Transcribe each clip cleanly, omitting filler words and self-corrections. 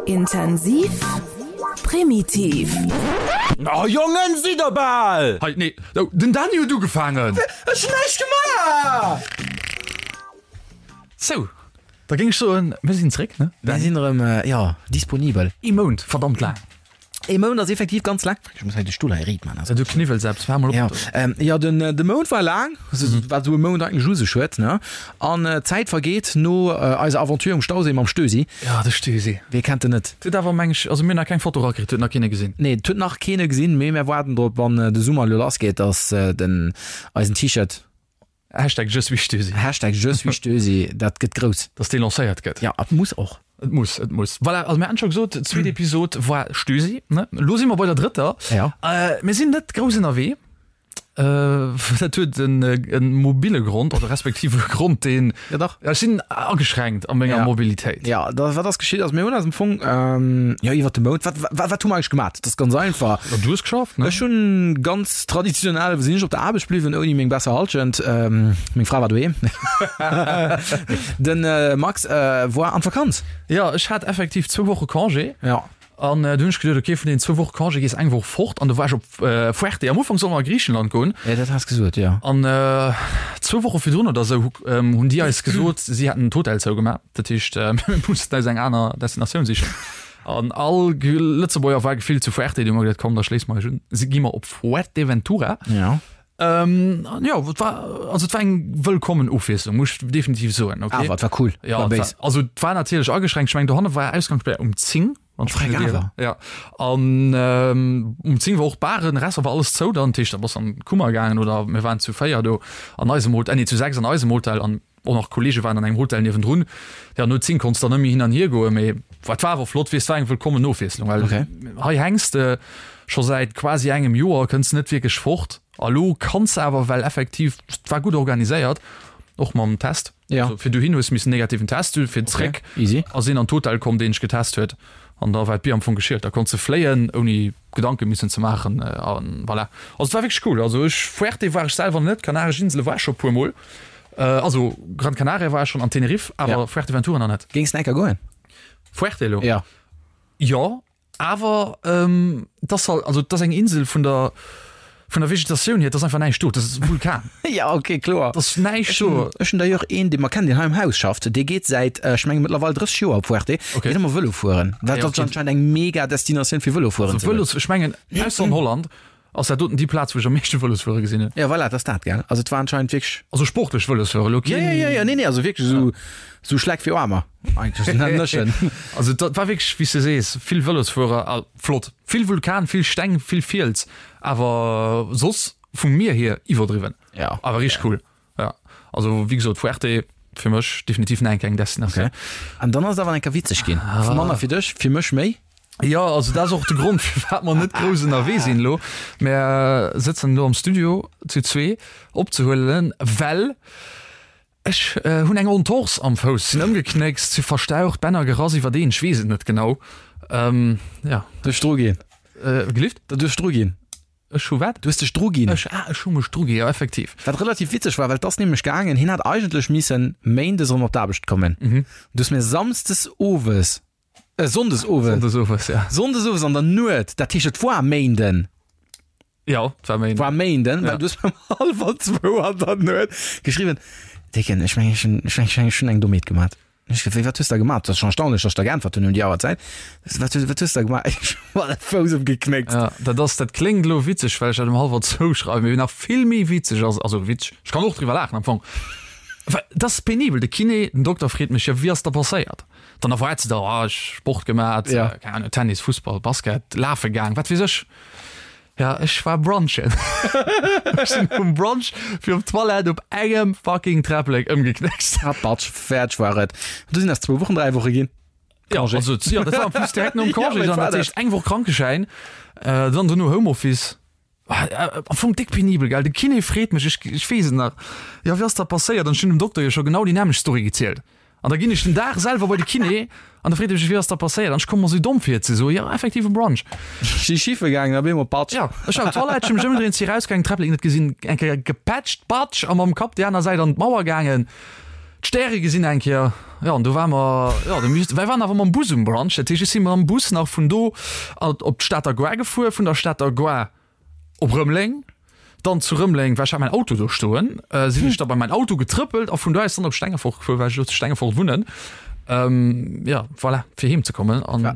Intensiv, primitiv. Oh Jongen, sidd der bal! Hei, nee, oh, den Dany huet ugefaangen! Ech hunn näischt gemaach! Sou, da géing ech soen, mir sinn zréck, ne? Mir sinn erëm, jo, disponibel. Ee Mount, verdammt laang. Ee Mount ass effektiv ganz laang. Ech muss hei de Stull hei riit man. Du kniwwels eppes, fahr mol op. Ja, ähm, ja den, de Mount war laang, wat esou e Mount eigentlech u sech huet, ne? An d'Zäit vergeet no eiser Aventure um Stauséi mam Stösi. Ja, de Stösi. Wee kennt en net? Huet awer, meng ech, also mir hunn nach keng Foto erakritt, huet nach keen e gesinn. Nee, et huet nach keen e gesinn, mee mär waarden drop, wann de Summer elo lassgeet, dass den eisen T-Shirt Hashtag Je suis Stösi. Hashtag Je suis Stösi, dat gëtt grouss. Dass dee lancéiert gëtt. Ja, et muss och. Et muss, et muss. Voilà, also mir haten scho gesot, d'zweet Episod war Stösi, ne? Elo si mer bei der drëtter. Ja. Mir sinn net grouss ënnerwee. Dat huet en e mobile Grond, oder respektiv e Grond, deen. Ja, dach. Ech sinn ageschränkt a menger Ja. Mobilitéit. Ja, da, wat ass geschitt? Also mir hunn eis am Fong, jo, iwwert de Mount, wat, wat, wat hu mer eigentlech gemat? Dat ass ganz einfach. Ja, du hues geschafft, ne? Ech hunn ganz traditionell, sinn ech op der Aarbecht bliwwen, ouni meng besser Halschent. Meng Fra war doheem. Den Max war an d'Vakanz. Jo, ech hat effektiv zwou Woche Congé. Ja. An du hunn ech geduet, ok, vun deenen zwou Woche Congé gees eng Woch fort. An du war ech op Fuerte. Am Ufank solle mer a Griichenland goen. Ja, dat has gesot, jo. An zwou Woche virdrun oder esou hunn déi eis gesot, si hätten d'Hotel zougemaach. Dat heescht, mir mussten eis eng aner Destinatioun sichen. An all Lëtzebuerger war gefillt zu Fuerte, du hu mer geduet, komm, da schléisse mer eis un, si gi mer op Fuerteventura. Ja. Ähm, an jo, et war, also et war eng wëllkommen Ofwiesslung, muss ech definitiv soen, okay. Awer et war cool, Ja, war et war, béis. also et war natierlech ageschränkt, ech mengen dohanne war Ausgangssperr um 10, wann ech Freck mech net ieren. awer. Ja, an ähm, um 10 war och d'Baren, Restaurant war alles zou dann, dat heescht da bass an d'Kummer gaangen oder mir waren zu 4 do an eisem Hotel, nee zu 6 an eisem Hotel an Och nach Kollege waren an engem Hotel niewendrun. Ja, no 10 konns dann net méi hin an hier goen, mee et war awer flott, weess, war eng wëllkommen Ofwiesslung, well Okay. hei hänks de scho säit quasi engem Joer, kënns net wierklech fort a lo kanns de awer, well effektiv et war gutt organiséiert, och mam Test. Ja. Also fir dohin hues missen negativen Test hunn, fir zréck Okay, easy. ass een an d'Hotel komm, deen dech getest huet an da war d'Bier am Fong geschielt. Da konns de fléien ouni Gedanke missen ze maachen an voilà. Also et war wierklech cool. Also ech, Fuerte war ech selwer net, Kanaresch Insele war ech scho e puermol. Also Gran Canaria war ech schon an Tenerife, awer Ja. Fuerteventura nach net. Géings de enker goen? Fuerte elo? Ja. Jo, awer ähm, das halt, also das eng Insel vun der vun der Vegetatioun hier, das einfach näischt do, das ist e Vulkan. Ja, okay, kloer. Das ist näischt do. Ech hunn d'ailleurs een, dee mer kennen, deen hei am Haus schafft, dee geet säit, ech menge mëttlerweil 30 Joer op Fuerte, Okay. geet ëmmer Vëlo fueren. Dat Ja, ass okay. anscheinend eng mega Destinatioun fir Vëlo fueren Also ze goen. Vëlos, ech mengen ausser an Holland Ass dat doten déi Plaz, wou ech am meeschte Vëlosfuere gesinn hunn? Ja, voilà, dat ass dat, gell? Also et war anscheinend wierklech. Also sportlech Vëlosfuere, elo Ja, keen. ja, ja, ja, nee, nee, also wierklech esou, esou Schleck fir Aarmer eigentlech, nennen ech en. Also dat war wierklech, wéi s de sees, vill Vëlosfuerer a flott. Vill Vulkan, vill Steng, vill Fiels, awer soss vum Mier hier iwwerdriwwen. Ja. Awer richteg cool. Ja, also wéi gesot, Fuerte fir mech definitiv nach eng kleng Destinatioun. Okay. An dann ass et awer eng Kéier witzeg ginn. Ah. Manner fir dech, fir mech méi. Ja, also dat ass och de Grond, firwat mer net grouss ënnerwee sinn elo. Mer sëtzen elo am Studio zu zwee opzehuelen, well ech hunn eng Entorse am Fouss, sinn ëmgeknéckst, si verstaucht, Bänner gerass iwwerdeen, ech weess et net genau. Ähm, ja. Du hues dru ginn. Äh, gelift? Du hues dru ginn. Ech hu wat? Du hues dech dru ginn. Ech, ah, ech hu mech dru ginn, jo, effektiv. Wat relativ witzeg war, well 't ass nämlech gaangen, hien hat eigentlech missen méindes erëm op d'Aarbecht kommen. Du hues mir samsdes owes, äh, sonndes owes. Sonndes owes, ja. Sonndes owes an der Nuet, dat heescht et war Méinden. Jo, et war Méinden. War Méinden, well Ja. du hues mir um hallwer zwou an der Nuet geschriwwen, Décken, ech mengen, ech hunn, ech mengen, ech hunn eng Dommheet gemat. Ech gefrot, wat hues de gemaat? Dat ass schon erstaunlech, dass ech der geäntwert hunn um déi Auerzäit. Wat hues, wat hues de gemaat? Ech hu mer de Fouss ëmgeknéckt. Ja, dat ass, dat kléngt elo witzeg, well ech dat um hallwer zwou schreiwen, mee nach vill méi witzeg ass, also witzeg, ech kann och driwwer laachen am Fong, well dat ass penibel. De Kiné, den Dokter freet mech, jo, wéi ass da passéiert? Dann erwaart se da, ah, ech Sport gemaat, Ja. keng Ahnung, Tennis, Fussball, Basket, lafe gaang, wat weess ech. Ja, ech war brunchen. Ech sinn um Brunch fir op d'Toilette op engem fucking Träpplek ëmgeknéckst. Ah, Batsch, fäerdeg war et. Du sinn ass zwou Wochen, dräi Woche ginn. Ja, Congé. also, ja, dat war en plus direkt nom Ja, Congé, mee dann war dat dat. heescht eng Woch Krankeschäin, äh, dann dono Homeoffice. Ah, äh, Am Fong déck penibel, gell? De Kiné freet mech, ech, ech weess et nach, jo, wéi ass dat passéiert? An ech hunn dem Dokter jo scho genau déi nämmlecht Story gezielt. An da ginn ech den Dag selwer bei de Kiné an da freet e mech, wéi ass dat passéiert? An ech komme mer esou domm vir ze soen, jo, effektiv e Brunch. Si schiffe gaangen a bemol patsch. Jo, ech war op d'Toilette, ech hu mech ëmgedréint, si erausgaangen, d'Träpplek net gesinn, eng Kéier gepätscht, patsch, a mam Kapp déi aner Säit an d'Mauer gaangen, d'Stäre gesinn eng Kéier. Jo, an do ware mer, jo, do misst, mir waren awer mam Bus um Brunch, dat heescht, ech si mam Bus nach vun do op d'Stater Gare gefuer, vun der Stater Gare op Rëmeleng, dann zu Rëmeleng, well ech hat mäin Auto do stoen, sinn ech da bei mäin Auto getrëppelt a vun do aus dann op Stengefort gefuer, well ech elo zu Stengefort wunnen, jo, voilà, fir heem ze kommen an.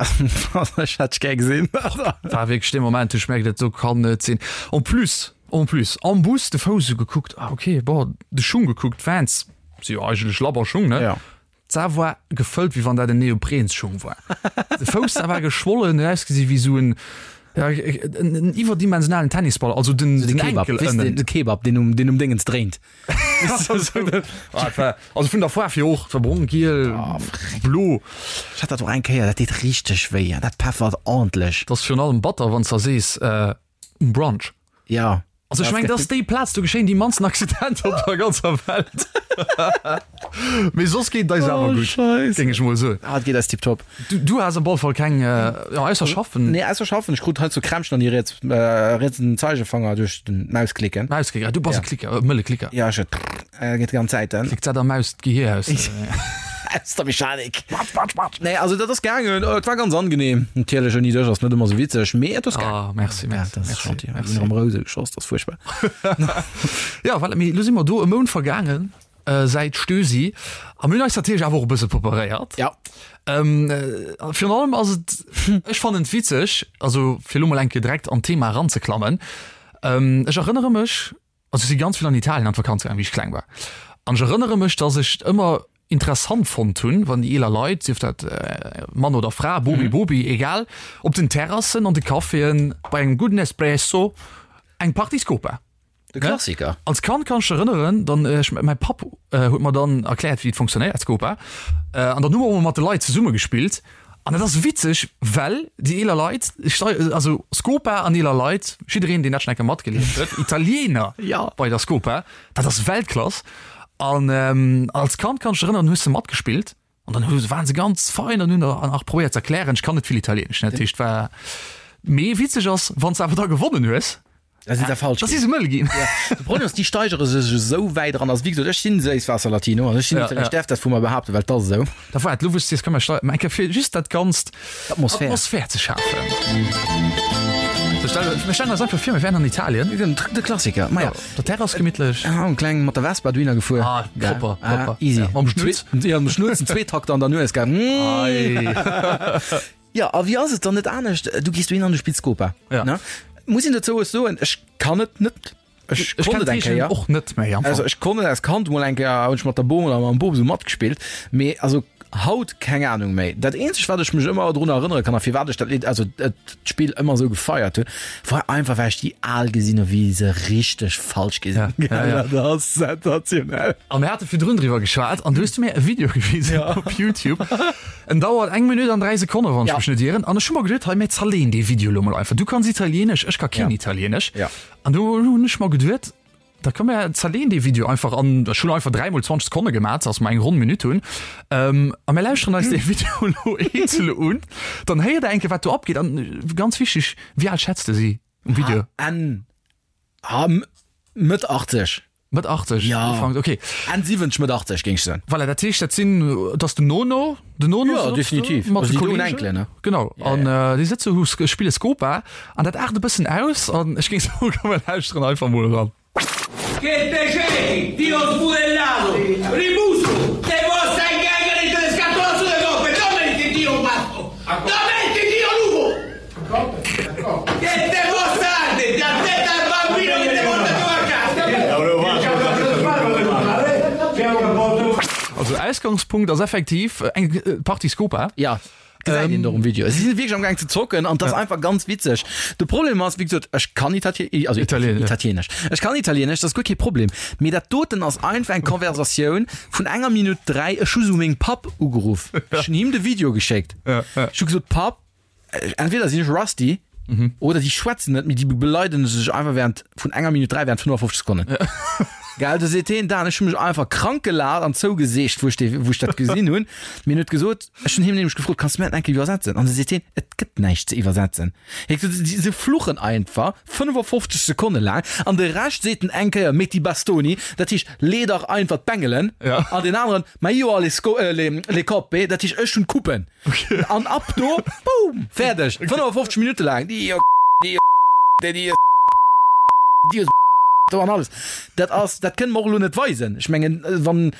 Ech hätt dech gär gesinn. War wierklech dee Moment, wou ech merkt, dat do kann net sinn. En plus, en plus am Bus de Fouss esou gekuckt, ah okay, bon, de Schung gekuckt, Vans si jo eigentlech labber Schung, ne? Ja. D'Sa war gefëllt, wéi wann dat en Neoprensschung war. De Fouss, da war geschwollen, huet ausgesi wéi esou en, ja, en iwwerdimensionalen Tennisball, also den, Den den Kebab, Enkel weess de, ënnen. de Kebab, deen um, deen um Déngens dréint. Ah, et war, also vun der Faarf hier och, et war brong, giel, blo. Ech hat dat och eng Kéier, dat deet richteg wéi, dat peffert ordentlech. Dat ass virun allem batter, wann s de sees, um Brunch. Ja. Also ech mengen, dat ass déi Plaz, do geschéien déi mannsten Accidenter op der ganzer Welt. Mee soss geet et eis awer gutt, géing ech mol soen. Ah, et geet eis tiptop. Du, du has op alle Fall keng, jo, ausser schaffen. Nee, ausser schaffen. Ech krut hei zu Krämpchen an déi riets, rietsen Zeigefanger duerch den Mausklicken. Mausklicker, du bass e Klicker, e mëlle Klicker. Ja, ech, geet déi ganz Zäit. Klickt dat der Maus d'Gehier aus. Aus der Mechanik. Patsch, patsch, patsch. Nee, also dat ass gaangen. Et war ganz angenehm. Natierlech ouni dech ass net ëmmer sou witzeg, mee et ass gaangen. Ah, merci, merci. Ja, dat ass merci, gentil. merci. Mir hunn erëm Rouse geschoss, dat ass fuerchtbar. Ja, voilà, mee elo si mer do e Mount vergaangen säit Stösi a mir hunn eis natierlech awer och e bësse preparéiert. Ja. Ähm, virun allem ass et, ech fannen et witzeg, also fir elo mol eng Kéier direkt an d'Thema eranzeklammen, ech erënnere mech, Also ech si ganz vill an Italien an d'Vakanz gaangen, wéi ech kleng war. An ech erënnere mech, dass ech et ëmmer interessant fonnt hunn, wann déi eeler Leit, sief dat Mann oder Fra, Bomi, Bobi, egal, op den Terrassen, an de Caféen, bei engem gudden Espresso eng Partie Scopa. De Klassiker. Als Kand kann ech mech erënneren, dann ech, mäi Papp huet mer dann erkläert, wéi et funktionéiert, Scopa. An dann hu mer och emol mat de Leit zesumme gespillt. An dat ass witzeg, well déi eeler Leit, also Scopa an eeler Leit, jiddereen deen dat schonn eng Kéier matgelieft huet, Italiener bei der Scopa, dat ass Weltklass. An als Kand kann ech mech erënneren, hues de matgespillt an dann hu waren se ganz fein an hunn der nach probéiert ze erklären, ech kann net vill Italienesch, dat heescht war, mee witzeg ass, wann s de awer da gewonnen hues, Da si se falsch Da si se mëll ginn. De Problem ass, déi steigere sech esou wäit eran. Also wéi gesot, ech sinn Séisswaasser-Latino an ech sinn Ja, Italiener. ja. Ech däerf dat vu mer behaapten, well 't ass esou. Da waart, lo wou s de sees, komm mer steigen eng Kéier fir just dat Ganzt, D'Atmosphär. Atmosphär ze schafen. So, stell, mir stellen eis einfach vir, mir wären an Italien. Den, de Klassiker. Ma ja. Der Terrass gemittlech. Ah, en kleng mat der Vespa dohinner gefuer. Ah, propper, propper. Ah, easy. Ja, mam Schnutz. Ja, mam Schnutz, en Zweetakter an der Nues, gell. Mm. Ei. Jo, a wéi ass et dann net anescht? Du gees dohin an du spills Scopa. Ja. Ne? Muss een dozou och soen, ech kann et net. Ech Ech konnt kenn et eng d'Regeln Kéier. och net méi am Fong. Also ech konnt et als Kand mol eng Kéier, hunn ech mat der Bom oder mam Bop esou matgespillt, mee also haut keng Ahnung méi. Dat eenzegt wat ech mech ëmmer drun erënnere kann a firwat ech dat Lidd, also d'Spill ëmmer esou gefeiert hunn, war einfach well ech déi Al gesinn hu wéi se richteg falsch gi sinn. Ja, ja, ja. Dat ass sensationell. A mir hate virdrun driwwer geschwat an du hues du mir e Video gewisen op YouTube. En dauert eng Minutt an 3 Sekonne wann ech mech net ieren. An ech hu mer geduet, hei mir zerleen dee Video lo mol einfach. Du kanns Italienesch, ech ka keen Italienesch. An du hunn ech mer geduet, da komm mir zerleen dee Video einfach an ech hunn einfach 3 mol 20 Sekonne gemat, dass mer eng ronn Minutt hunn. A mir lauschteren eis dee Video lo eenzel un. Dann héiert der eng Kéier wat do abgeet. An ganz wichteg, wéi al schätz de si um Video? Enn Mëtt 80. Mëtt 80 Ja. Ufank, okay. Enn 70, Mëtt 80 géing ech soen. Voilà, dat heescht, dat sinn, dat ass den Nono, den Nono Ja, sëtzt do definitiv. mat Also de déi doen Kollegen. Enkelen, ne? Genau, an déi sëtze hu spille Scopa an dat aart e bëssen aus an ech géing soen, komm mir lauschteren einfach mol eran. Che te cerchi, ti ho sbudellato, rimusu, te possa in gangheri te scatolazzo de coppe, dove ti dio matto, dove ti dio lupo, Che te possa arde, ti attenta al bambino che te porta tu a casa. Also Ausgangspunkt ass effektiv eng Partie Scopa. Ja, gesäit een och um Video. Si sinn wierklech am Gaang ze zocken an 't ass einfach ganz witzeg. De Problem ass, wéi gesot, ech kann Itatie-, also Italienesch. Italienesch. Ech kann Italienesch, dat ass guer kee Problem. Mee dat doten ass einfach eng Konversatioun vun enger Minutt 3. Ech hu sou mengem Papp ugeruff. Ech hunn him de Video geschéckt. Ech hu gesot, Papp, Entweder sinn ech rusty oder déi schwätzen net, mee déi beleiden sech einfach während vun enger Minutt 3 während 55 Sekonnen. Gell, du seet heen, Dan, ech hu mech einfach krank gelaacht an zougeseegt, wou ech dee, wou ech dat gesinn hunn. Mee en huet gesot, ech hunn him nämlech gefrot, Kanns du mir dat eng Kéier iwwersetzen? An du seet heen, Et gëtt näischt ze iwwersetzen. Hie huet gesot, Se fluchen einfach 55 Sekonne laang an de Rescht seet en eng Kéier, Metti bastoni, dat heescht, lee dach einfach d'Bengelen. An deen aneren, Ma io ho le sco, le, le coppe, dat heescht, ech hunn d'Coupen. An ab do, boom, fäerdeg. 55 Minutte laang, Dio, Dio, Dio, Dio, do an alles. Dat ass, dat kënne mer och elo net weisen. Ech mengen, wann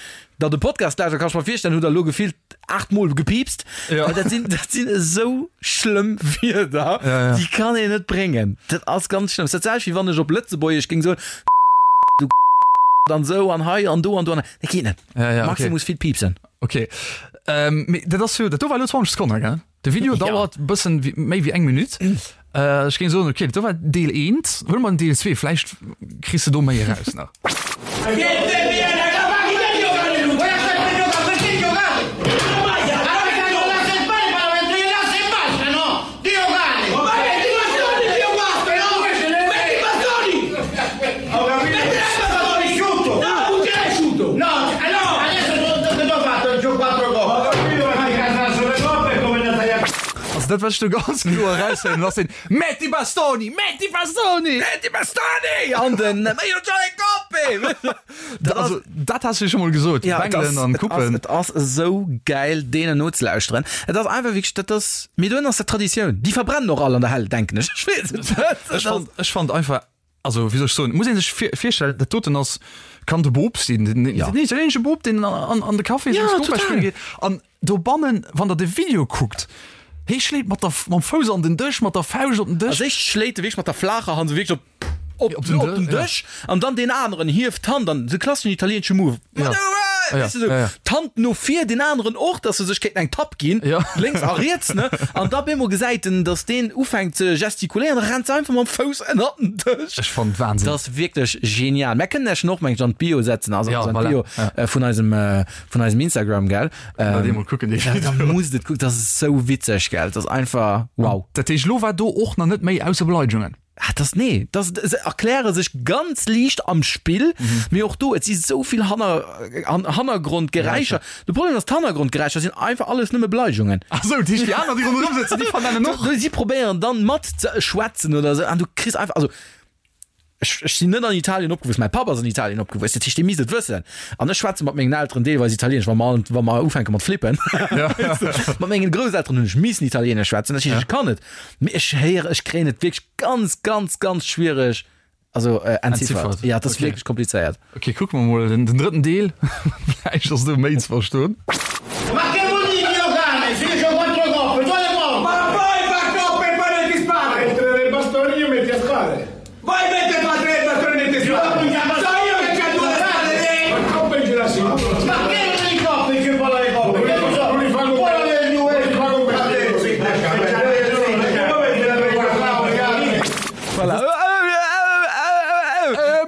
Der de Podcast lauschtert, kann ech mer virstellen, hutt Der elo gefillt 8 Mol gepiipst. Ja. Well dat sinn, dat sinn esou schlëmm Wierder, Ja, ja. déi kann een net bréngen. Dat ass ganz schlëmm. Dat selwecht wéi wann ech op Lëtzebuergesch géing soen, du an esou an hei an do an do an. Dat geet net. Ja, ja, okay. Maxi muss vill piipsen. Okay. Ähm, mee dat ass jo, dat do war elo 20 Sekonnen, gell? De Video Ja. dauert e bëssen wéi, méi wéi eng Minutt. Äh, ech géing soen, okay, dat do war Deel 1. Huele mer den Deel 2, vläicht kriss de do méi eraus nach. Also dat wat ech do ganz kloer eraushéieren ass den Metti bastoni! Metti bastoni! Metti bastoni! An den Io c'ho le coppe! Dat also dat has du scho mol gesot, Ja, et Bengelen ass, an et ass, Kuppen. et ass esou gäil deenen nozelauschteren. Et ass einfach wierklech, dat ass, mee dohin ass dat Traditioun. Déi verbrennen och all an der Hell, denken ech. Ech weess et net. Ech fand, ech fand einfach, also wéi soll ech soen, muss ee sech vir, virstellen, dat doten ass, kann de Bop sinn, den, den Ja. italienesche Bop, deen an, an de Café Ja, seng Scopa total. spille geet. An dobannen, wann der de Video kuckt, hee schléit mat der, mam Fouss an den Dësch, mat der Fauscht op den Dësch. Als éischt schléit e wierklech mat der flaacher Hand esou wierklech op op, Op den op den Dë- ja. Dësch an dann deen aneren hieft d'Hand an de klasseschen italieenesche Move. Ja. Ja. Ja, Weißt du, so, ja, ja. D'Hand no vir, deen aneren och, dass se sech kéinten eng Tapp ginn, Ja. lénks a riets, ne? An da bemol gesäit en, dass deen ufänkt ze gestikuléieren, da rennt se einfach mam Fouss ënnert den Dësch. Ech fand Wahnsinn. Dat ass wierklech genial. Mär kënnen Iech en och, meng ech, an d'Bio setzen, also Ja, an voilà. d'Bio Ja. äh, vun eisem, äh, vun eisem Instagram, gell? Ähm, Ähm, mol kucken, dee ja, da Video. musst et kucken, dat ass sou witzeg, gell? Dat ass einfach wow. Dat heescht, lo war do och nach net méi ausser Beleidigungen. Ah, das, nee, das, se erkläre sech ganz liicht am Spill, mhm. mee och do, et si sou vill Hanner, an, Hannergrondgeräischer. De Problem ass, d'Hannergrondgeräischer sinn einfach alles nëmme Beleidigungen. Ach sou, déi, déi aner, déi ronderëm sëtzen, déi vernennen och. Si probéieren dann mat ze schwätzen oder sou, an du kriss einfach, also ech, ech sinn net an Italien opgewuess, mäi Papp ass an Italien opgewuess, dat heescht, dee misst et wëssen. An ech schwätze mat mengen Elteren deelweis Italienesch, wa mer, wa mer ufänke mat flippen. Mat mengen Grousselteren hunn ech missen Italienesch schwätzen, dat heescht, ech kann et. Mee ech héieren, ech kréien et wierklech ganz, ganz, ganz schwiereg, also äh, entziffert. Entziffert. Ja, dat ass Okay. wierklech komplizéiert. Okay, kucke mer mol den, den drëtten Deel. Vläicht ass do méi ze verstoen. Ma che vuol dire Dio cane? Se io c'ho quattro coppe, tu le porti! Ma poi fa coppe e poi metti spade! Mettere le bastoni e metti a spade! Vai mettere tu a tre bastoni e metti spade! So io che c'ho due spade lì! Ma coppe ce la si! Ma che non le coppe che poi le coppe? Che lo so? Non li fa con Poi le due! Non li fa con me! Sì, Voilà.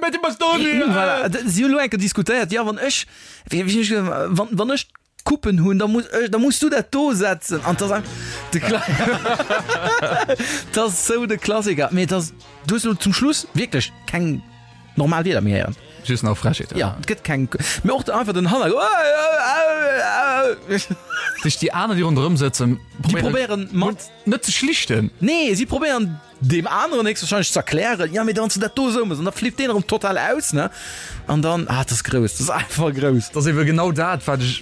Metti bastoni! Voilà. Si hunn elo eng Kéier diskutéiert, jo, wann ech, wéi, wéi hunn ech gesot, wann, wann ech Coupen hunn, da muss ech, da muss du dat do setzen. An 't ass einfach de Kla 't ass sou de Klassiker. Mee et ass, du hues elo zum Schluss wierklech keng normal Wierder méi héieren. Just nach Frechheeten. Ja, et gëtt keng, mee och einfach den Hanner. Sech déi aner, déi ronderëm sëtzen, Déi probéieren mat. net ze schlichten. Nee, si probéieren deem aneren héchstwahrscheinlech ze erklären, ja, mee wann s du dat do esou méchs, an da flippt deen erëm total aus, ne? An dann, ah, dat ass grouss, dat ass einfach grouss. Dat ass ebe genau dat, wat ech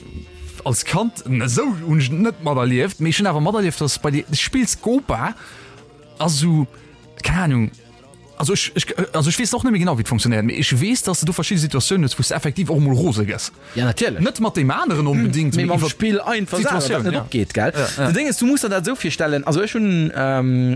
als Kand, esou hunn ech et net materlieft, mee ech hunn awer materlieft, dass bei de Spill Scopa ass esou, keng Ahnung, Also ech, ech, also ech weess och net méi genau wéi et funktionéiert, mee ech weess, dass de do verschidde Situatiounen hues, wou s de effektiv och emol rose gëss. Ja, natierlech. Net mat deem aneren onbedéngt, Mee mee mam iwwer Spill einfach selwer, wat d'Situatioun, net ja. opgeet, gell? Ja, ja. De Ding ass, du muss der dat esou virstellen, also ech hunn,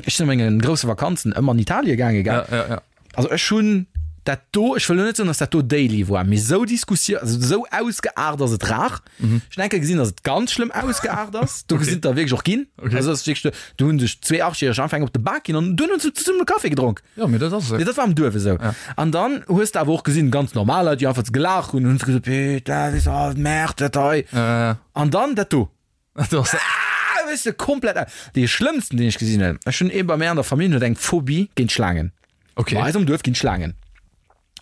ech sinn a menge grousse Vakanzen ëmmer an Italie gaange, gell? Ja, ja, ja. Also ech hunn dat do, ech wëll elo net soen, dass dat do daily war, mee esou Diskussioun, also esou ausgeaart ass et rar. Ech hunn eng Kéier gesinn, dass et ganz schlëmm ausgeaart ass. Do sinn der wierklech och ginn. Okay. Also ass wierklech, do hunn sech zwee Achtjäreg einfach eng op de Bak ginn an dunn hunn se zesummen e Café gedronk. Ja, mee dat ass Nee, et. dat war am Duerf esou. Ja. An dann hues de awer och gesinn, ganz normal Leit, déi einfach gelaacht hunn, hunn se gesot, Putain, weess de, oh, Merde, dat hei. Äh, An dann dat do. dat ass. Ah, weess de, komplett. Dee schlëmmsten, deen ech gesinn hunn, ech hunn ee bei mär an der Famill, huet eng Phobie géint Schlaangen. Okay. Bei eis am Duerf ginn Schlaangen.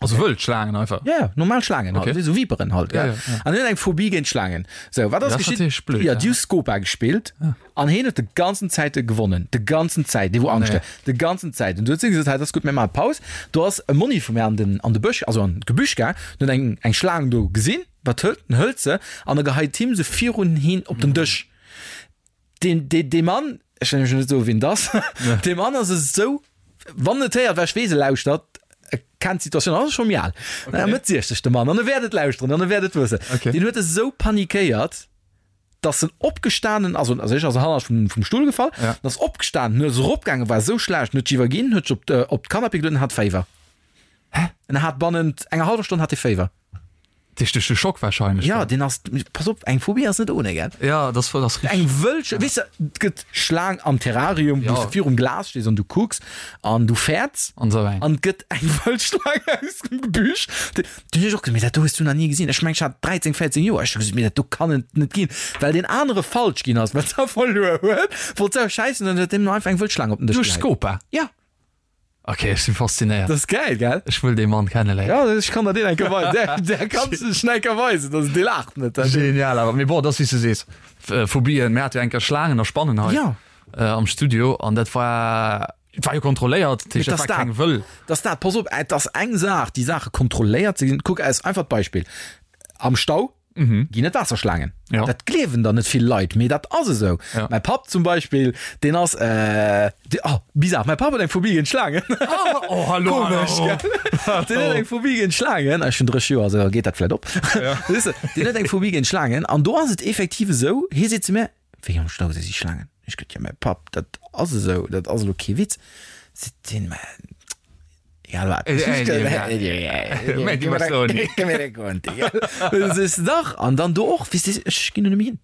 Also wëll Schlaangen einfach? Ja, ja, normal Schlaangen halt, Okay. esou Viperen halt, Ja, gell. ja, ja. An hien huet eng Phobie géint Schlaangen. Sou, wat ass Dat ass geschitt? natierlech blöd, Ja, ja. déi hu Scopa gespillt an hien huet de ganzen Zäite gewonnen. De ganzen Zäit, dee wou Angscht Nee. huet. De ganzen Zäit. An du huet si gesot, hei, dat ass gutt, mir maache Paus. Do ass e Monni vu mir an den, an de Bësch, also an d'Gebüsch gaang, an huet eng, eng Schlaang do gesinn. Wat hëlt en? Hëlt se an e geheit him se virun hien op den Dësch. Deen, dee, dee Mann, ech wëll nämlech net soen, wien et ass, dee Mann ass esou, wann en et héiert, well ech weess, e lauschtert, e kennt d'Situatioun, ass scho méi al, okay. Mëtt 60 de Mann, an e wäert et lauschteren an e wäert et wëssen. Okay. Deen huet esou panikéiert, dass en opgestanen ass, also ech ass hannert vum, vum Stull gefall, Ja. en ass opgestanen, en ass eropgaangen, war esou schlecht, en huet sech iwwerginn, huet sech op, op d'Canapé geluet an hat Féiwer. Hä? En hat bannent enger hallwer Stonn hat e Féiwer. Duerch duerch de Schock wahrscheinlech. Ja, deen ass, pass op, eng Phobie ass net ohne, gell? Ja, das war das Eng wëll, weess de, et gëtt Schlaang am Terrarium, wou Ja. s de virum Glas stees an du kucks an du fäerts. An esou eng. An et gëtt eng wëll Schlaang aus dem Gebüsch. Du hunn ech och gesot, mee dat do hues du nach ni gesinn. Ech meng, ech hat 13, 14 Joer. Ech hu gesot, mee dat do kann et net ginn. Well deen anere falsch ginn ass, well se verluer huet, wollt se och schäissen an huet deem einfach eng wëll Schlaang op den Dësch Duerch geheit. Scopa? Ja. Ok, ech sinn faszinéiert. Dat ass gäil, gell? Ech wëll dee Mann kenneléieren. Ja, ech kann der deen eng Kéier weisen. Där, där kanns du ech eng Kéier weisen, dass dee laacht net. Genial awer. Mee bon, et ass wéi s du sees, Phobien, mir hate jo eng Kéier Schlaangen a Spannen hei Ja. am Studio an dat war, et war jo kontrolléiert, dat heescht, Mee dat war dass keng dat, wëll. dass dat, pass op, et ass eng Saach, déi Saache kontrolléiert ze ginn. Kuck, als einfacht Beispill, Am Stau ginn et Waasserschlaangen. Ja. Dat gleewen der net vill Leit, mee dat ass esou. Ja. Mäi Papp zum Beispill, deen ass, äh, dee, oh, bizarre, mäi Papp huet eng Phobie géint Schlaangen. Oh, oh, hallo, Komesch, hallo. gell? Deen huet eng Phobie géint Schlaangen. Ech hunn 30 Joer, also da geet dat vläit op. Ja. Weess de, deen huet eng Phobie géint Schlaangen an do ass et effektiv esou, hie seet zu mir, Wéi am Stau si si Schlaangen? Ech gesot, Jo, mäi Papp, dat ass esou, dat ass elo kee Witz. Seet deen, Mä Egal wat. Dach an dann do och weess de ech ginn do net méi hin.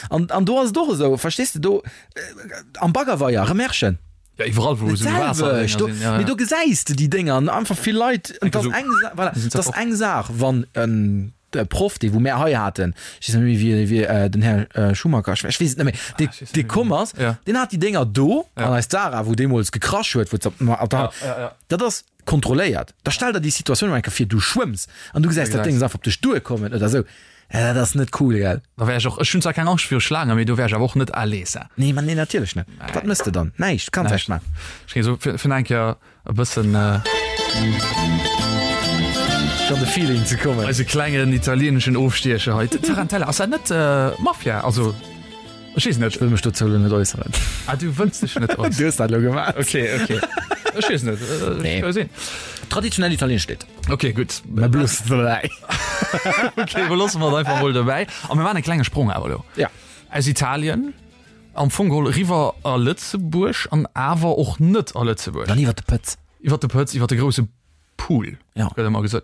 An an do ass et och esou verstees de do am Baggerweier Remerschen. Ja iwwerall wou esou Waasser do, sinn, ja, mee do gesäis de déi Dénger an einfach vill Leit. Et ass eng Sa voilà, et ass eng Saach wann en de Proff dee wou mär hei haten, ech weess net méi wéi wéi den Här Schumacher, ech weess et net méi, dee dee komm ass, deen hat déi Dénger do an eis Zara wou deemools gekrasch huet, wou op der Dat ass kontrolléiert. Da stell der déi Situatioun emol eng Kéier vir, du schwëmms an du gesäis dat Déngs einfach op dech duerkommen oder esou. Dat ass net cool, gell? Da wär ech och, ech hunn zwar keng Angscht viru Schlaangen, mee do wär ech awer och net à l'aise. Nee, ma nee, natierlech net. Wat mëss de dann? Näischt, du kanns näischt maachen. Ech géing esou fir fir eng Kéier e bëssen. Fir an de Feeling ze kommen. Eise klengen italieeneschen Ofstiecher hei. Tarantella, ass dat net Mafia? Also. Ech weess net. Ech wëll mech dozou elo net äusseren. Ah, du wëlls dech net äusseren. Du hues dat elo gemaach. Okay, okay. Ech weess net. Nee. Ech sinn. Traditionell italieenescht Lidd. Okay, gutt. Mä blooss et dobäi. Okay, beloosse mer et einfach mol dobäi. A mir maachen e klenge Sprong awer elo. Ja. Aus Italien, am Fong geholl eriwwer a Lëtzebuerg an awer och net a Lëtzebuerg. Dann iwwer de Pëtz. Iwwer de Pëtz, iwwer de grousse Pool, Ja. gëtt ëmmer gesot.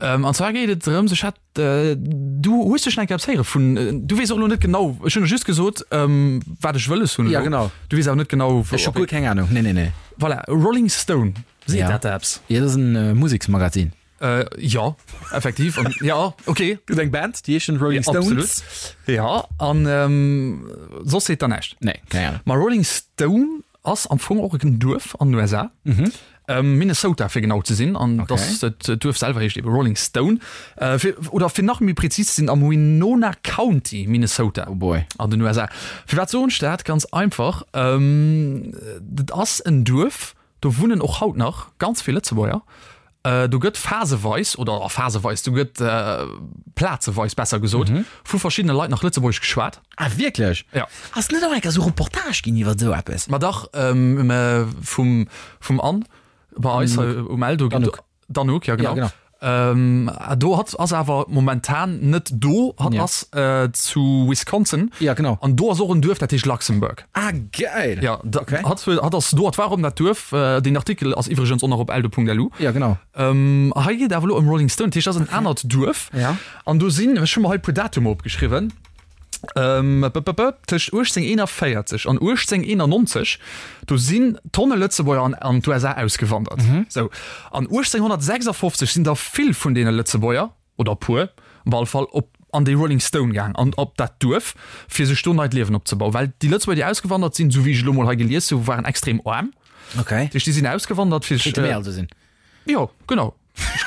Ähm, an zwar geet et drëms, ech hat, äh, du hues dech enke eppes héiere vun, äh, du weess och elo net genau, ech hunn der just gesot, ähm, wat ech wëlles hunn Ja, elo. genau. Du weess awer net genau, Ech hu guer keng Ahnung. Nee, nee, nee. Voilà, Rolling Stone, seet Ja. dat der eppes? Ja, dat ass en äh, Museksmagazin. Äh, ja, effektiv. An, ja, okay. Gëtt eng Band, déi heeschen Rolling Ja, Stones. absolut. Ja, an ähm, soss seet der näischt. Nee, keng Ahnung. Ma Rolling Stone Ass am Fong och en Duerf an den USA, Minnesota fir genau ze sinn, an okay. dat Duerf selwer heescht ebe Rolling Stone, äh, fir, oder fir nach méi präzis ze sinn am Winona County, Minnesota. Oh boy. An den USA. Firwat soen ech dat? Ganz einfach, ähm, dat ass en Duerf, do wunnen och haut nach ganz vill Lëtzebuerger. Do gëtt phaseweis, oder phaseweis, do gëtt plazeweis besser gesot, vu verschiddene Leit nach Lëtzebuergesch geschwat. Ah wierklech? Ja. Ass net och eng Kéier esou Reportage ginn iwwer esou eppes? Ma dach, vum, vum Anne bei eis hei um Eldo. D'Anouk. D'Anouk, ja genau. Ja, genau. Do hatt ass awer momentan net do, hatt ass zu Wisconsin. Ja, genau. An do ass och en Duerf, dat heescht Luxembourg. Ah, geil! Ja, da, Okay. hatt, hatt ass do, hatt war op dat Duerf. Deen Artikel ass iwwregens och nach op eldo.lu. Ja, genau. Ähm, hei geet awer elo ëm Rolling Stone, dat heescht, dat ass en anert Duerf. Ja. An do sinn, ech hu mer hei e puer Datumer opgeschriwwen, ähm, p, p, p, tëscht 1841 an 1891, do sinn Tonne Lëtzebuerger an, an d'USA ausgewandert. Sou. An 1856 sinn der vill vun deene Lëtzebuerger, oder e puer op alle Fall, op an déi Rolling Stone gaang an op dat Duerf, fir sech do neit Liewen opzebauen. Well déi Lëtzebuerger, déi ausgewandert sinn, esou wéi ech elo mol hei gelies hu, waren extrem aarm. Okay. Dat heescht, déi sinn ausgewandert, fir sech. Kéinte mir also sinn. Jo, genau.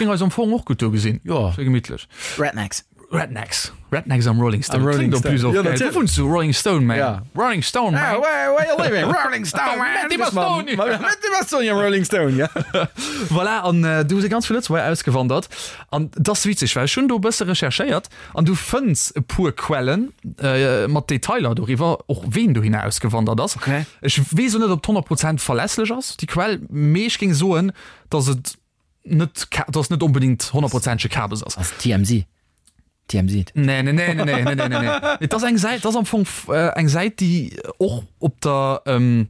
géing eis am Fong och gutt do gesinn. Jo. Schéi gemittlech. Rednecks. Rednecks. Rednecks am Rolling Stone. Am Rolling Klingt en plus Stone. och Ja, geil. natierlech. Du wunns zu Rolling Stone, man. Ja. Rolling Stone, man. Ah, where, where you living? Rolling Stone, man. Met die Bastoni. Met die Bastoni am Rolling Stone, ja. Voilà, an äh, du si ganz vill Lëtzebuerger ausgewandert. An dat ass witzeg, well ech hunn do e bësse recherchéiert an du fënns e puer Quellen äh, mat Detailer doriwwer, och ween dohinner ausgewandert ass. Okay. Ech weess och net, ob 100 Prozent verlässlech ass, déi Quell, mee ech géing soen, dass et net, dass net onbedingt honnertprozentege Kabes ass. Ass TMZ. TMZ. Nee, nee, nee, nee, nee, nee, nee, nee. Et ass eng Säit, ass am Fong äh, eng Säit, déi och op der ähm,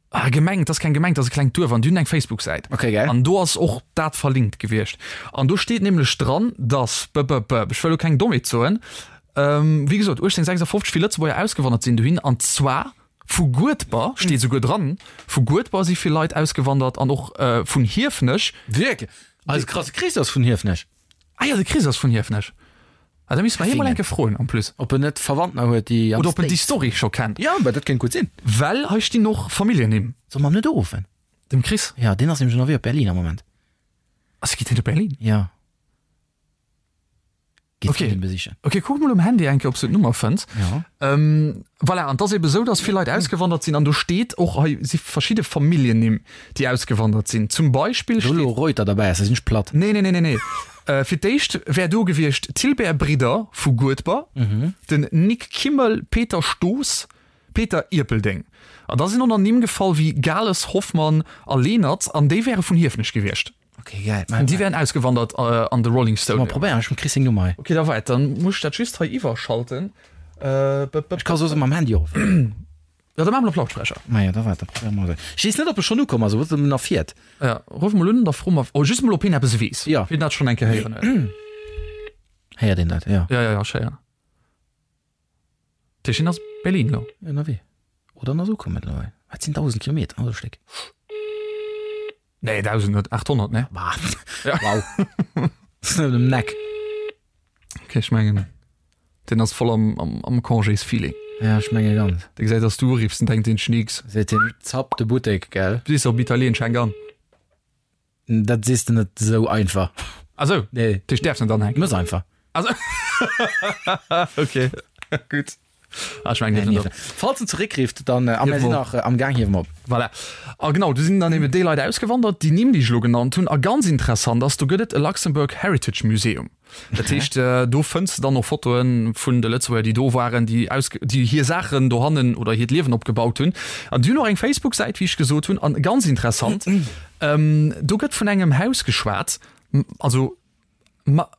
ah, Gemeng, dat ass keng Gemeng, dat ass e klengt Duerf an déi hunn eng Facebook-Säit. Okay, geil. An do ass och dat verlinkt gewiescht. An do steet nämlech dran, dass, b, b, b, ech wëll elo keng Dommheet soen, ähm, wéi gesot, 1856 vill Lëtzebuerger ausgewandert sinn dohin, an zwar Vu Guedber, steet esouguer dran, vu Guedber si vill Leit ausgewandert an och vun Hiefenech. Wierklech? Eise krasse Chris ass vun Hiefenech. Ah jo, de Chris ass vun Hiefenech. Ah, da misste mer hie mol eng Kéier froen en plus. Ob en net Verwandter huet, déi am Oder ob en déi Story scho kennt. Jo, mä dat kéint gutt sinn. Well hei stinn och Familljennimm. Solle mer em net uruffen? Dem Chris? Jo, deen ass nämlech ënnerwee op Berlin am Moment. Ass, geet hien op Berlin? Jo. Geet Okay. Frëndin besichen. Ok, kuck mol um Handy eng Kéier, ob s du d'Nummer fënns. Ja. Ähm, voilà, an 't ass ebe sou, dass vill Leit ausgewandert sinn an do steet och, hei si verschidde Familljennimm, déi ausgewandert sinn. Zum Beispill Wou elo steet. Reuter derbäi ass, da sinn ech platt. Nee, nee, nee, nee, nee. Äh, fir d'éischt wär do gewiescht Tilbert Bridder vu Guedber, den Nic Kimmel, Peter Stoos, Peter Ierpeldeng. An da sinn och nach Nimm gefall wéi Gales, Hoffmann a Lenert an déi wäre vun Hiefenech gewiescht. Okay, geil. An déi wären ausgewandert an de Rolling Stone. Mal probéieren, ech hunn d'Chris seng Nummer hei. Okay, da weit, dann muss ech dat just hei iwwerschalten. Ech ka soss mam Handy uruffen. Ja, da maache mer op Lautsprecher. Maja, da waart, da probéiere mer esou. Ech weess net, ob e schonn ukomm ass, ob en nach fiert. Ja, ruff mol un, da froe mer, oh, just mol, ob hien eppes weess. Ja. Wien dat schonn eng Kéier héieren huet. Héiert een dat, ja. Ja, ja, ja, ech héieren. Tëscht hien ass Berlin elo. Ënnerwee. Oder en ass ukomm mëttlerweil. Wat sinn 1.000 Kilometer, also e Stéck. Nee, 1.000 net, 800, ne? Bah. Ja. Wow. Das ist net um Neck. Okay, ech mengen, deen ass voll am, am, am Congés-Feeling. Ja, ech menge ganz. Dee gesäit, dass du uriffs, den denkt deen Schneeks. Seet hien, zapp de Buttek, gell? Du sees op Italiensch, hänk an. Dat sees de net esou einfach. Ah sou, Nee. Dech däerfs net anhänken. Muss einfach. Ah sou. Okay, gutt. Ah, ech mengen, dierf net op. Falls en zeréckrifft, dann, a mir sinn nach am Gaang, hiewe mer op. Voilà. A genau, do sinn dann eben déi Leit ausgewandert, déi Nimm, déi ech elo genannt hunn. A ganz interessant ass, do gëtt et e Luxembourg Heritage Museum. Dat heescht, do fënns de dann och Fotoe vun de Lëtzebuerger, déi do waren, déi aus, déi hir Saachen dohannen oder hiert Liewen opgebaut hunn. An déi hunn och eng Facebook-Säit, wéi ech gesot hunn. An ganz interessant, do gëtt vun engem Haus geschwat, also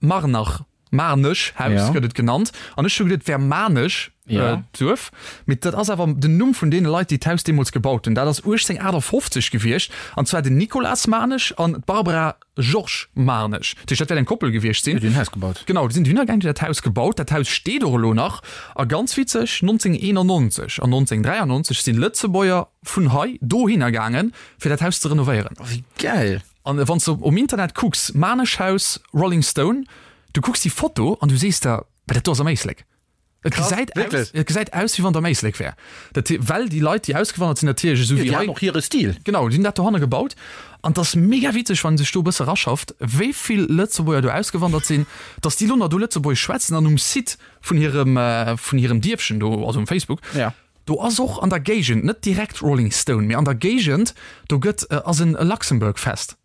Marnach, Marnech Haus gëtt et genannt. An ech hu geduet, et wär Maarnech, d'Duerf. Mee dat ass awer den Numm vun deene Leit, déi d'Haus deemools gebaut hunn. Dat ass 1858 gewiescht, an zwar den Nicolas Maarnech an d'Barbara Georges Maarnech. Dat heescht, dat wäert eng Koppel gewiescht sinn. Déi hunn d'Haus gebaut. Genau, déi sinn dohinner gaangen, déi hunn dat Haus gebaut. Dat Haus steet och elo nach. A ganz witzeg, 1991 an 1993 sinn Lëtzebuerger vun hei dohinner gaangen, fir dat Haus ze renovéieren. Oh, wéi gäil! An wann s de um Internet kucks, Maarnech Haus, Rolling Stone, du kucks déi Foto an du sees der, Mä dat do ass am Éislek. Et gesäit aus, et gesäit aus wéi wann et am Éislek wär. Dat he, well déi Leit, déi ausgewandert sinn, natierlech esou wéi hei. Déi haten och hire Stil. Genau, déi hunn dat dohanne gebaut. An et ass mega witzeg, wann ee sech do e bësse eraschaft, wéi vill Lëtzebuerger do ausgewandert sinn, datt déi lo nach do Lëtzebuergesch schwätzen an um Site vun hirem, vun hirem Dierfchen do, also um Facebook, do ass och an der Géigend, net direkt Rolling Stone, mee an der Géigend, do gëtt, ass en Luxembourg Fest.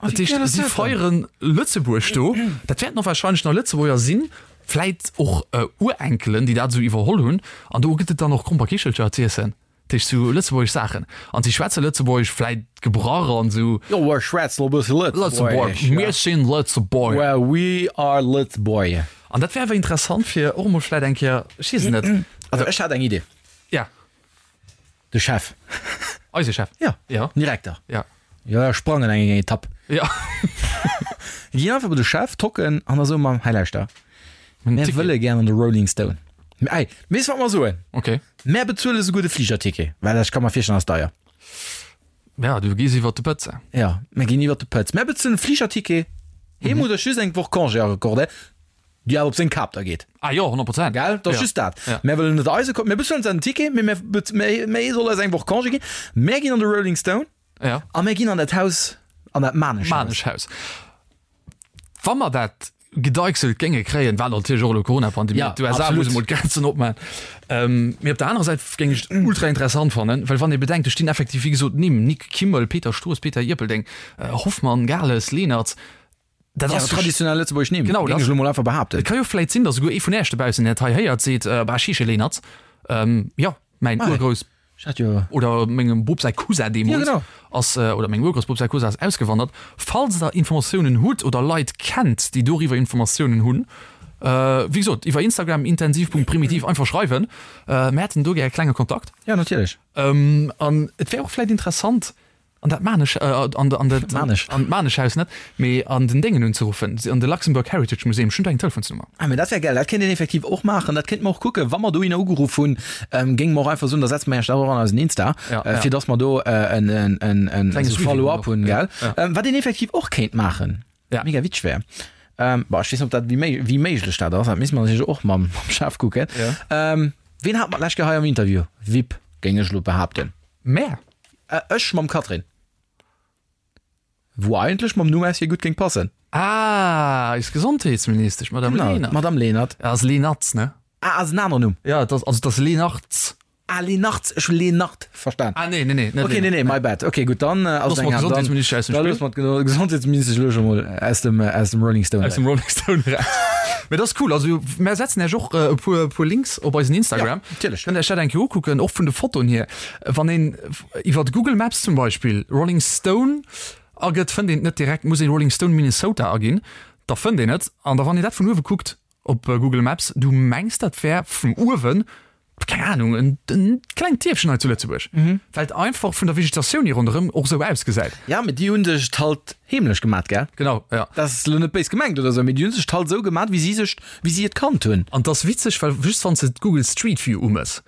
Dat heescht, si feiere Lëtzebuerg do. Dat wäerten och warscheinlech nach Lëtzebuerger sinn, vläit och Urenkelen, déi dat esou iwwerholl hunn. An do gëtt et dann och Gromperkichelcher z'iessen, dat heescht sou lëtzebuergesch Saachen. An si schwätze Lëtzebuergesch, vläit gebrach an esou. Jo, ech schwätzen och e bësse Lëtzebuergesch. Mir sinn Lëtzebuerger. Well we are Lëtzebuerger. An dat wär awer interessant, fir och emol vläit eng Kéier, ech weess et net. Also ech hat eng Idee. Ja. De Chef. Eise Chef? Ja. Ja. Den Direkter. Ja. Jo, ech sprangen eng eng Etapp. Ja. Ginn einfach bei de Chef, tocken an da soe mer, hei lauschter, mär wëlle gär an de Rolling Stone. Ey, weess wat mer soen? Okay. Mär bezuele souguer de Fligerticket, well ech ka mer virstellen, ass deier. Ja, du gees iwwert de Pëtz. Ja, mär ginn iwwert de Pëtz. Mär bezuelen de Fligerticket, hee muss eis just eng Woch Congé accordéieren. Déi awer op seng Kap da geet. Ah jo, 100 Prozent. Gell? Dat ass just dat. Ja. Mär wëllen net eise Ko-, mir bezuelen zwar den Ticket, mee mär bez-, mee, mee e soll eis eng Woch Congé ginn. Mär ginn an de Rolling Stone Ja. a mär ginn an dat Haus, an dat Manesch Haus. Manesch Haus. Wa mer dat gedeichselt géinge kréien, wat natierlech och elo Corona-Pandemie, Ja, d'USA absolut. muss emol d'Grenzen opmaachen. Ähm, mee op der anerer Säit géing ech et ultra interessant fannen, well wann ee bedenkt, do stinn effektiv, wéi gesot, Nimm, Nic Kimmel, Peter Stoos, Peter Ierpeldeng, Hoffmann, Gales, Leenertz, dat Ja, ass jo traditionell lëtzebuergesch Nimm, Genau, géing dat ech elo mol einfach behaapten. Et ka jo vläit sinn, datt esouguer ee vun Äech dobaussen, deen dat hei héiert, seet, Bah, ech heesche Leenertz, ähm, jo, mäin Ah, Urgrouss. Ech hat jo. Oder mengem Bop säi Cousin deemools Ja, genau. ass, oder mengem Urgroussbop säi Cousin ass ausgewandert. Falls der Informatiounen hutt oder Leit kennt, déi doriwwer Informatiounen hunn, wéi gesot, iwwer Instagram intensiv.primitiv einfach schreiwen. Mir hätten do gär e klenge Kontakt. Ja, natierlech. An et wär och vläit interessant, An dat Manesch, an an dat Manesch. An d'Maneschhaus net, mee an den Déngen unzeruffen, an de Luxembourg Heritage Museum. Ech hunn do eng Telefonsnummer. Ah, mee dat wär gäil. Dat kéint een effektiv och maachen. Dat kéinte mer och kucken, wa mer dohinner ugeruff hunn, géinge mer och einfach soen, da setze mer Iech dat och an eisen Insta, Ja, ja. fir dass mer do en, en, en, en Klenge esou Suivi Follow-up hunn hunn, och. gell? Ja. Wat een effektiv och kéint maachen, Ja. mega witzeg wär, bon, ech weess net, ob dat, wéi méi, wéi méiglech dat ass, dat misste mer natierlech och mam, mam Chef kucken. Ja. Ween hat mer d'lescht Kéier hei am Interview? Vip, géing ech elo behaapten. Mä. Ech mam Catherine. Wou eigentlech mam Numm aus hir gutt géing passen. Ah, eis Gesondheetsministesch, d'Madame Genau, Lenert. d'Madame Lenert. Ass Lenartz, ne? Ah, ass en aneren Numm? Ja, et ass, also et ass Lenartz. Ah, Lenartz, ech hu Lenart verstan. Ah, nee, nee, nee, net Okay, nee, nee, my bad. Okay, gutt, dann ass Loosse et mer eng aner. Dann, d'Gesondheetsministesch aus dem da Spill. loosse mer d'Gesondheetsministesch elo scho mol aus dem, aus dem Rolling Stone Aus dem eraus. Rolling Stone eraus. Mee dat ass cool. Also mär setzen Iech och e puer, puer Links op eisen Instagram. Ja, natierlech. Kënnt Iech dat eng Kéier ukucken, och vun de Fotoen hier. Wann een iwwer Google Maps zum Beispill Rolling Stone agëtt, fënnt een et net direkt, muss een Rolling Stone Minnesota aginn, da fënnt een et. An da wann een dat vun uewe kuckt op Google Maps, du mengs dat wär vun uewen, keng Ahnung, en en klengt Dierfchen hei zu Lëtzebuerg, well et einfach vun der Vegetatioun hier ronderëm och esou ausgesäit. Ja, mee déi hunn sech et halt heemlech gemat, gell? Genau, ja. Dat ass elo net béis gemengt oder esou, mee déi hunn sech et halt esou gemat, wéi si sech, wéi si et kannt hunn. An 't ass witzeg, well just wann s de d'Google Street View umëss,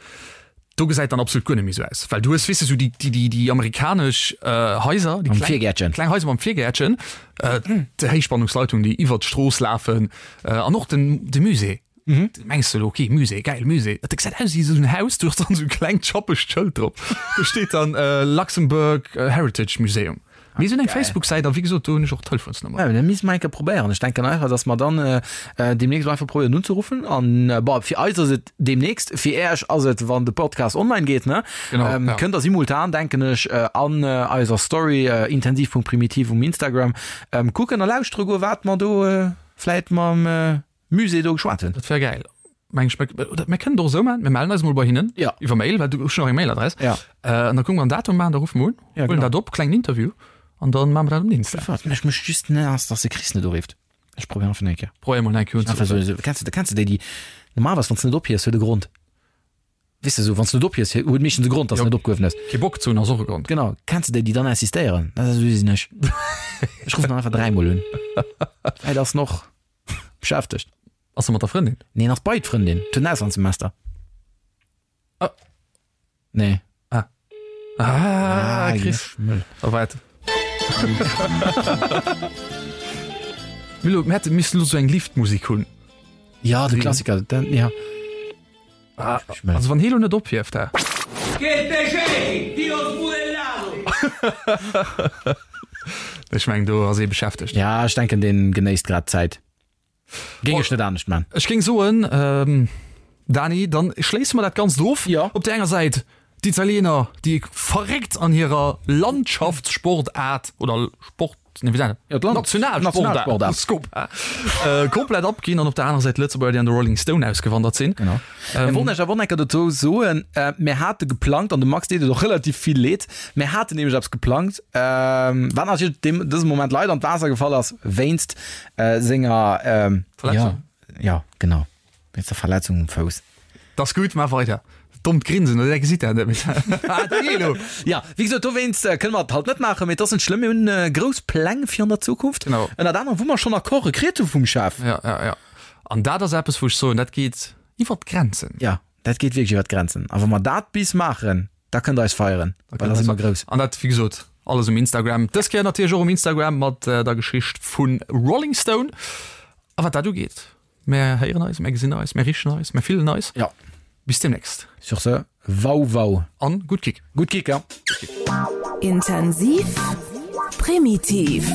do gesäit dann absolut guer net méi esou aus, well du hues, weess de, esou déi, déi, déi, déi amerikanesch Haiser, déi Mam kleng, Virgäertchen. kleng Haiser mam Virgäertchen, déi Héichspannungsleitung, déi iwwert d'Strooss lafen, an och den, de Musée. Mengs de elo, ok, Musée, geil, Musée. Dat gesäit aus wéi esou en Haus, do ass dann esou e klengt schappegt Schëld drop. Do steet dann Luxembourg Heritage Museum. Mee se hunn eng Facebook-Säit a wéi gesot, do hunn ech och d'Telefonsnummer. Ja, dat misste mer eng Kéier probéieren. Ech denken einfach, dass mer dann deemnächst einfach probéieren unzeruffen. An bon, fir eis ass et deemnächst, fir Äech ass et, wann de Podcast online geet, ne? Genau, ja. Kënnt der simultan, denken ech, an eiser Story intensiv.primitiv um Instagram kucken a lauschtere goen, wat mer do vläit mam Musée do geschwat hunn. Dat wär gäil. Meng ech, oder mir kënnen et och esou maachen, mir mellen eis emol bei hinnen. Ja. Iwwer Mail, well du hues schon nach eng Mailadress. Ja. An da kucke mer en Datum maachen, da ruffe mer un, Ja, huelen genau. dat op, klengen Interview, an dann maache mer dat um Insta. Wat mech mécht just naass, dass de Chris net urifft. Ech probéieren einfach eng Kéier. Probéier emol eng Kéier Einfach unzeruffen. esou, esou, kennst du, kennst du déi, déi normalerweis, wann s de net ophiefs, huet e Grond. Weess de, esou, wann s de net ophiefs, huet meeschtens e Grond, dass Jo. de net opgehuewen hues. Kee Bock ze hunn ass och e Grond. Genau. Kennst du déi, déi dann insistéieren? Dat esou sinn ech. Ech ruffen dann einfach dräimol un. Vläit ass en och beschäftegt. Ass e mat der Frëndin? Nee, en ass bei d'Frëndin. Et huet en Auslandssemester. Ah. Nee. Ah. Ah, Chris. Mëll. A wat? Milo, mir hätte missen lo sou eng Liftmusik hunn. Ja, de Klassiker. Den, ja. Ah, also wann hee lo net ophieft, hä? Che te ciechi, Dio sbudellato! Ech meng do ass ee beschäftegt. Ja, ech denken deen genéisst grad d'Zäit. Géing ech net anescht man. Ech géing soen, Dani, dann schléisse mer dat Ganzt of. Jo. Op där enger Säit d'Italiener, déi verréckt an hirer Landschaftssportaart oder Sport, nee, wéi seet Jo, d'Land- Nationalsportaart, Nationalsportaart. Scopa, komplett abginn an op der anerer Säit d'Lëtzebuerger, déi an de Rolling Stone ausgewandert sinn. Genau. Mir wollten Iech awer och nach eng Kéier dozou soen, mir hate geplangt, an dem Max deet et och relativ vill Leed, mir haten nämlech eppes geplangt, wat natierlech deem, dësem Moment leider an d'Waasser gefall ass, wéinst senger, Verletzung. Ja, ja, genau, wéinst der Verletzung um Fouss. T'ass gutt, maach weider. Dommt Grinsen, oder? Dat gesitt der net méi. Ah, da geh elo! Ja, wéi gesot, dowéinst kënne mer et halt net maachen, mee et ass net schlëmm, mir hunn grouss Pläng fir an der Zukunft. Genau. Ënnert anerem, wou mer schonn Accorde kritt hu vum Chef. Ja, ja, ja. An dat ass eppes, wou ech soen, dat geet iwwer d'Grenzen. Ja, dat geet wierklech iwwer d'Grenzen. A wa mer dat bis maachen, da kënnt der eis feieren, well da si mer grouss. An dat, wéi gesot, alles um Instagram. Dës Kéier natierlech och um Instagram mat der Geschicht vu Rolling Stone. A wat dat ugeet, Mär héieren eis, mär gesinn eis, mär richen eis, mär fillen eis. Ja. Bis demnächst. Sur ce, wau wau. An gutt Kick. Gutt Kick, ja. Intensiv, primitiv.